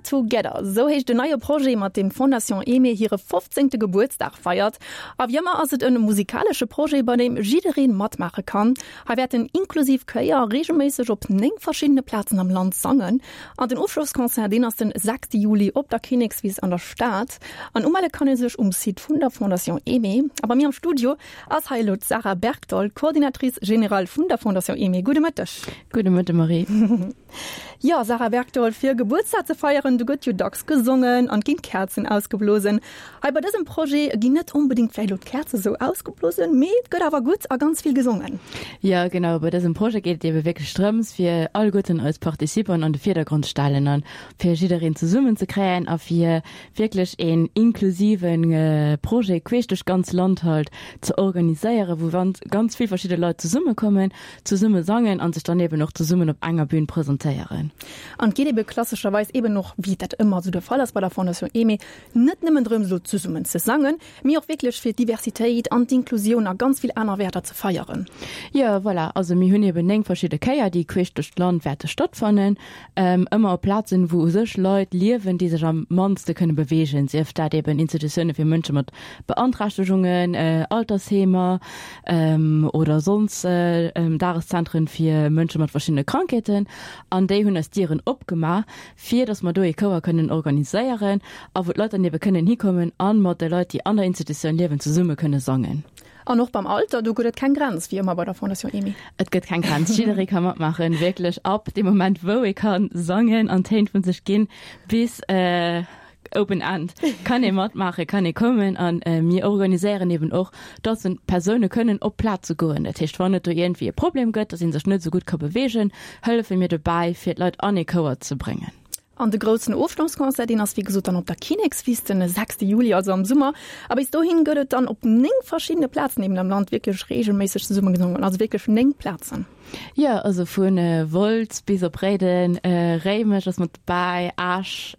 Together, esou heescht en neie Projet, mat deem d'Fondation Aimée hire fofzéngte Gebuertsdag feiert. A wéi ëmmer ass et e musikalesche Projet, bei deem jidderee matmaache kann. Hei wäerten inklusiv Chéier reegelméisseg op 9 verschiddene Plazen am Land sangen. An den Ofschlossconcert, deen ass den 6 Juli op der Kinnekswiss an der Stad. An umelle kann ee sech um Site vun der Fondation Aimée. A bei mir am Studio ass hei elo d'Sarah Bergdoll, Coordinatrice générale vun der Fondation Aimée. Gudde Mëtteg. Gudde Mëtte Marie. Jo, Sarah Bergdoll, fir Gebuertsdag ze feieren, do gëtt jo dacks gesongen an et ginn d'Käerzen ausgeblosen. Hei bei dësem Projet ginn net onbedéngt vläicht elo d'Käerze sou ausgeblosen, mee et gëtt awer gutt a ganz vill gesongen. Jo, genau, bei dësem Projet geet et ebe wierklech drëms, fir alleguerten eis Participanten an de Virdergrond stellen an fir jiddereen zesummen ze kréien a fir wierklech een inklusive Projet queesch duerch d'ganz Land halt ze organiséieren, wou ganz vill verschidde Leit zesummekommen Zesumme sangen an sech dann eben och zesummen op enger Bühn presentéieren. An et geet ebe klassescherweis eben och, wéi dat ëmmer esou de Fall ass bei der Fondation Aimée, net nëmmen drëms elo zesummen ze sangen, mee och wierklech fir d'Diversitéit an d'Inklusioun a ganz vill aner Wäerter ze feieren. Jo, voilà. Also mir hunn eben 9 verschidde Chéier, déi queesch duerch d'Land wäerte stattfannen. Ëmmer op Plazen, wou u sech Leit liewen, déi sech am mannste kënne beweegen, sief dat eben Institutioune fir Mënsche mat Beanträchtegungen, Altersheemer oder sonns Dageszentren fir Mënsche mat verschiddene Krankheeten. An déi hunn eis d'Dieren opgemaach, fir datt mer do ee Chouer kënnen organiséieren a wou d'Leit dann ebe kënnen hikommen a mat de Leit, déi an der Institutioun liewen, zesumme kënne sangen. An och beim Alter, do gëtt et keng Grenz, wéi ëmmer bei der Fondation Aimée. Et gëtt keng Grenz, jidderee ka matmaachen, wierklech ab deem Moment, wou ee ka sangen an Téin vu sech ginn, bis open end kann ee matmaachen, kann ee kommen. A mir organiséieren eben och, dass Persoune kënnen op d'Plaze goen. Dat heescht, wann et do iergendwéi e Problem gëtt, dass ee sech net esou gutt ka beweegen, hëllefe mir dobäi, fir d'Leit an ee Chouer ze bréngen. An de groussen Ofschlossconcert, deen ass wéi gesot dann op der Kinnekswiss den 6 Juli, also am Summer. A bis dohin gëtt et dann op 9 verschiddene Plazen eben am Land wierklech reegelméisseg zesumme gesongen, also wierklech 9 Plazen. Jo, also vu Wolz bis op Réiden, Réimech ass mat dobäi, Esch,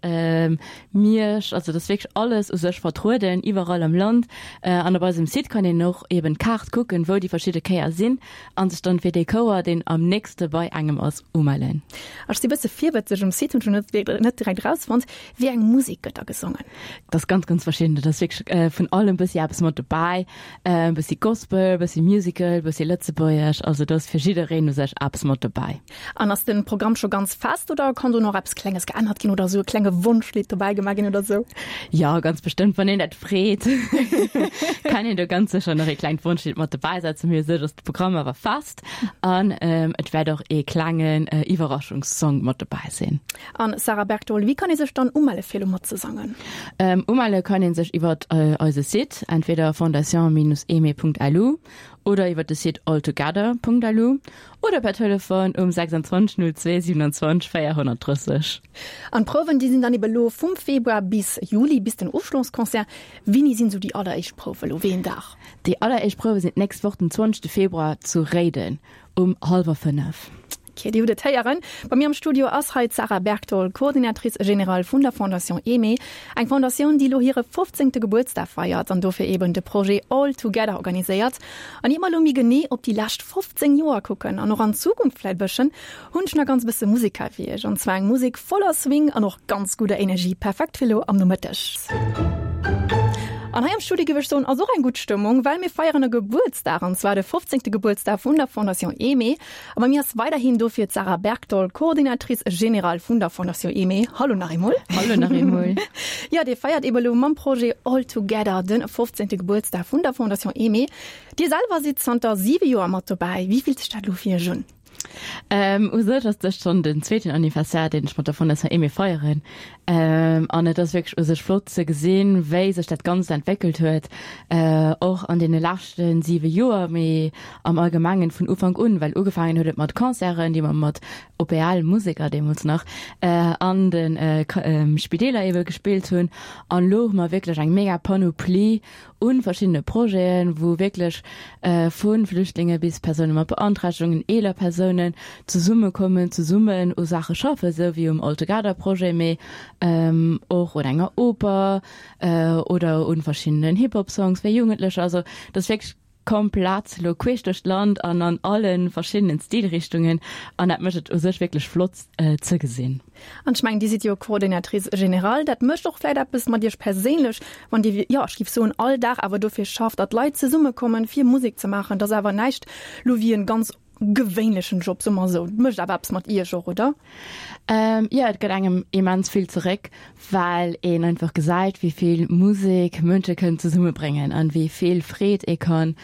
Miersch, also et ass wierklech alles u sech vertrueden, iwwerall am Land. An op eisem Site kann een och eben d'Kaart kucken, wou déi verschidde Chéier sinn an sech dann fir dee Chouer, deen am nächste bei engem ass, umellen. Ech si bësse virwëtzeg, um Site hunn ech net net direkt erausfonnt, wéi eng Musek gëtt da gesongen? Dat ass ganz, ganz verschidden. Dat ass wierklech vun allem bëssi eppes mat dobäi. E bëssi Gospel, e bëssi Musical, e bëssi Lëtzebuergesch. Also do ass fir jiddereen u sech eppes mat dobäi. An ass de Programm scho ganz fest oder kann do nach eppes Klenges geännert ginn oder esou e klenge Wonschlidd dobäi gemaach ginn oder esou? Jo, ganz bestëmmt, wann een dat freet, kann een do ganz sécher nach ee klengt Wonschlidd mat dobäi setzen. Mee u sech ass de Programm awer fest an et wäert och ee klengen Iwwerraschungssong mat dobäi sinn. An Sarah Bergdoll, wéi kann ee sech dann umelle fir elo matzesangen? Umelle kann ee sech iwwert eise Site, entweder fondation-aimée.lu oder iwwert de Site alltogether.lu oder per Telefon um 26 02 27 430. An d'Prouwen, déi sinn dann ebe lo vum Februar bis Juli, bis den Ofschlossconcert. Wéini sinn esou déi alleréischt Prouwe lo? Wéi een Dag? Déi alleréischt Prouwe sinn d'nächst Woch den 20 Februar zu Réiden um hallwer 5. Ok, Dir hutt et héieren. Bei mir am Studio ass hei d'Sarah Bergdoll, Coordinatrice générale vun der Fondation Aimée. Eng Fondatioun, déi elo hire 15. Gebuertsdag feiert an dofir eben de Projet All Together organiséiert. An ier mer elo méi genee op déi lescht 15 Joer kucken an och an d'Zukunft vläit e bësschen, hunn ech nach ganz bësse Musek hei fir iech. An zwar eng Musek voller Swing an och ganz gudder Energie, perfekt fir elo am Nomëtteg. An hei am Studio géif ech soen, ass och eng gutt Stëmmung, well mir feieren e Gebuertsdag, an zwar de 15. Gebuertsdag vun der Fondation Aimée. A bei mir ass weiderhin dofir d'Sarah Bergdoll, Coordinatrice générale vun der Fondation Aimée. Hallo nach eemol. Hallo nach eemol. Jo, Dir feiert eben elo mam Projet All Together de 15. Gebuertsdag vun der Fondation Aimée. Dir selwer sidd zanter 7 Joer mat dobäi. Wéi fillt sech dat elo fir Iech un? Ähm, u sech ass dëst schonn den zweeten Anniversaire, deen ech mat der Fondation Aimée feieren. Ähm, an et ass wierklech u sech flott ze gesinn, wéi sech dat Ganzt entwéckelt huet, äh, och an deene leschte 7 Joer, mee am Allgemengen vun Ufank un, well ugefaangen huet et mat Concerten, déi mer mat OPL-Museker deemools nach, äh, an de Spideeler ebe gespillt hunn. An elo hu mer wierklech eng mega Panoplie un verschiddene Projeten, wou wierklech vu Flüchtlinge bis Persoune mat Beanträchtegungen, eeler Persounen zesummekommen, zesummen u Saache schaffen, esou wéi um All Together Projet, mee och un enger Oper oder un verschiddenen Hip-Hop Songs fir Jugendlecher. Also dat ass wierklech. Komplett lo queesch duerch d'Land an an alle verschiddenen Stilrichtungen an dat mécht et u sech wierklech flott ze gesinn. An ech mengen, Dir sidd jo Coordinatrice générale, dat mécht och vläit eppes mat Iech perséinlech, wann Dir, jo, ech géif soen, all Dag awer dofir schafft, datt Leit zesummekommen, fir Musek ze maachen. Dat ass awer näischt lo wéi en ganz gewéinlechen Job, soe mer esou. Et mécht awer eppes mat Iech och, oder? Jo, et gëtt engem immens vill zeréck, well een einfach gesäit, wéi vill Musek Mënsche kënnen zesummebréngen an wéi vill Freed ee kann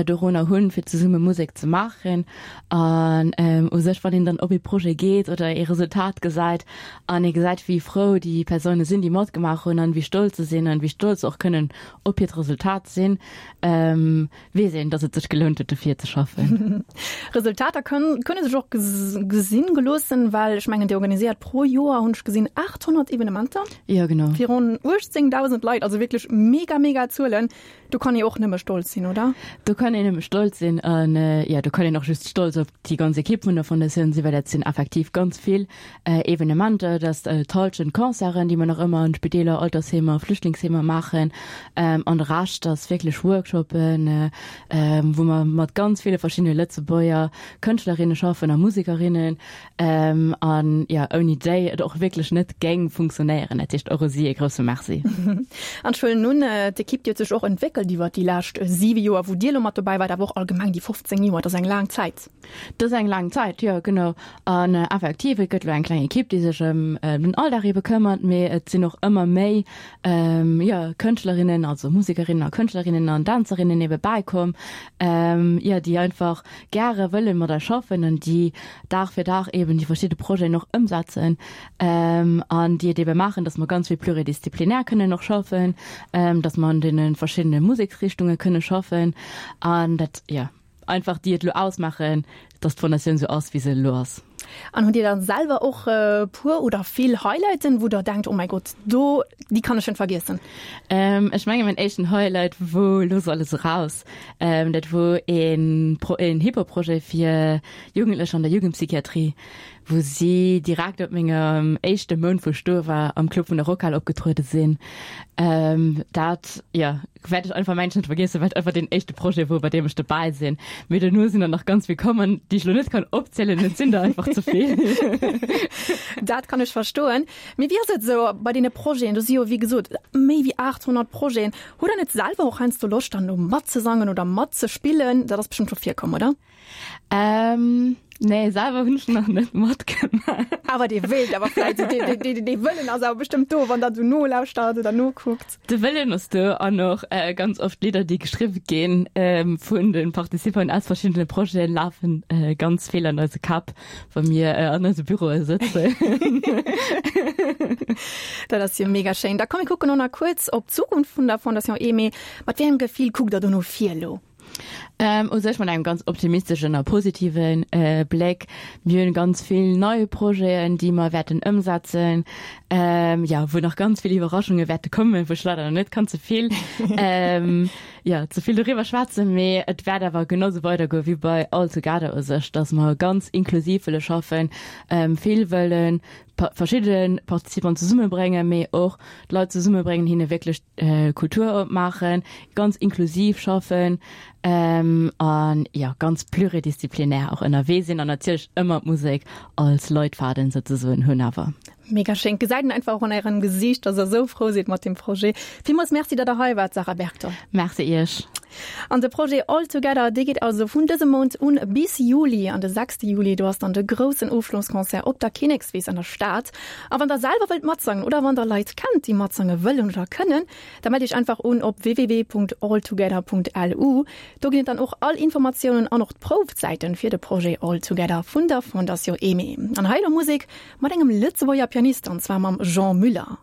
dorunner hunn, fir zesumme Musek ze maachen. An u sech, wann een dann op ee Projet geet oder ee Resultat gesäit an ee gesäit, wéi frou déi Persoune sinn, déi matgemaach hunn an wéi stolz se sinn an wéi stolz se och kënnen op hiert Resultat sinn, weess een, dass et sech gelount huet dofir ze schaffen. Resultater kënne sech och gesinn geloossen, well ech mengen Dir organiséiert pro Joer, hunn ech gesinn, 800 Evenementer. Jo genau. Fir ronn 18.000 Leit, also wierklech mega mega Zuelen. Do kann ee och nëmme stolz sinn, oder? Do kann een nëmme stolz sinn an jo do kann een och just stolz op déi ganz Ekipp vun der Fondatioun sinn, well dat sinn effektiv ganz vill Evenementer, et ass d'Hallschent Concerten, déi mer nach ëmmer an Spideeler, Altersheemer, Flüchtlingsheemer maachen. An de Rescht ass wierklech Workshoppen, wou mer mat ganz ville verschiddene Lëtzebuerger Kënschtlerinne schaffen a Musekerinnen. An jo, ouni déi et och wierklech net géing funktionéieren. Dat heescht, och u si e grousse Merci. An ech huelen un, d'Ekipp, déi huet sech och entwéckelt iwwer déi lescht siwe Joer, wou Dir elo mat dobäi waart, awer och allgemeng déi 15 Joer, dat ass eng laang Zäit. Dat ass eng laang Zäit, jo genau. An effektiv, et gëtt elo eng kleng Ekipp, déi sech ëm den Alldag ebe këmmert, mee et sinn och ëmmer méi, jo, Kënschtlerinnen, also Musekerinnen a Kënschtlerinnen an Dänzerinnen ebe bäikomm, jo, déi einfach gäre wëlle mat eis schaffen an déi Dag fir Dag eben déi verschidde Projeten och ëmsetzen an déi et ebe maachen, datt mer ganz vill pluridisziplinär kënnen och schaffen, datt mer an deene verschiddene Museksrichtunge kënne schaffen an dat, jo. Einfach déi et elo ausmaachen, dass d'Fondatioun esou ass, wéi se elo ass. An hutt Dir dann selwer och e puer oder vill Highlighten, wou Der denkt, oh mäi Gott, do, déi kann ech net vergiessen? Ech menge mäin éischten Highlight wor Looss alles eraus. Dat wor een een Hip-Hop-Projet fir Jugendlecher an der Jugendpsychiatrie, wou si direkt op mengem éischte Mount, wou ech do war, am Club vun der Rockhal opgetruede sinn. Dat, jo. Wäert ech einfach mengen net vergiessen, well et einfach deen éischte Projet wor, bei deem ech dobäi sinn. Mee dono sinn der nach ganz vill komm an déi ech lo net kann opzielen, et sinn der einfach ze vill. Dat kann ech verstoen. Mee wéi ass et esou bei deene Projeten? Do si jo wéi gesot méi wéi 800 Projeten. Hutt der net selwer och heiansdo Loscht dann do matzesangen oder matzespillen? Dat ass bestëmmt scho virkomm, oder? Ähm, nee, selwer hunn ech nach net matgemaach. Awer dee wéilt awer vläit, dee, dee, dee, dee Wëllen ass awer bestëmmt do, wann der esou nolauschtert oder nokuckt. De Wëllen ass do an och äh, ganz oft Lidder, déi geschriwwe ginn ähm, vun de Participanten aus verschiddene Projeten, lafen äh, ganz vill an eise Käpp, wa mir äh, an eise Büroe sëtzen. Dat ass jo mega schéin. Da komm mir kucken och nach kuerz op d'Zukunft vun der Fondation Aimée. Mat wéi engem Gefill kuckt der do no vir elo? Ähm, u sech mat engem ganz optimisteschen a positiven äh, Bléck. Mir hunn ganz vill nei Projeten, déi mer wäerten ëmsetzen, ähm, ja, wou nach ganz vill Iwwerraschunge wäerte kommen, wou ech leider nach net kann ze vill, ähm, ja, ze vill doriwwer schwätzen. Mee et wäert awer genau sou weidergoe wéi bei All Together u sech, dass mer ganz inklusiv wëlle schaffen, ähm, vill wëllen verschidde Participanten zesummebréngen, mee och d'Leit zesummebréngen, hinne wierklech Kultur opmaachen, ganz inklusiv schaffen an jo ganz pluridisziplinär och ënnerwee sinn an natierlech ëmmer d'Musek als Leitfaden souzesoen hunn awer. Mega schéin. Gesäit een einfach och an ärem Gesiicht, dass der esou frou sidd mat deem Projet. Villmools Merci, datt der hei waart, Sarah Bergthal. Merci iech. An de Projet All Together, dee geet also vun dësem Mount un bis Juli. An de sechste Juli, do ass dann de groussen Ofschlossconcert op der Kinnekswiss an der Stad. A wann der selwer wëllt matsangen oder wann der Leit kennt, déi matsange wëllen oder kënnen, da mellt iech einfach un op www.alltogether.lu. Do ginn et dann och all Informatiounen an och d'Proufzäiten fir de Projet All Together vun der Fondation Aimée. An hei elo Musek mat engem Lëtzebuerger Pianist, an zwar mam Jean Müller.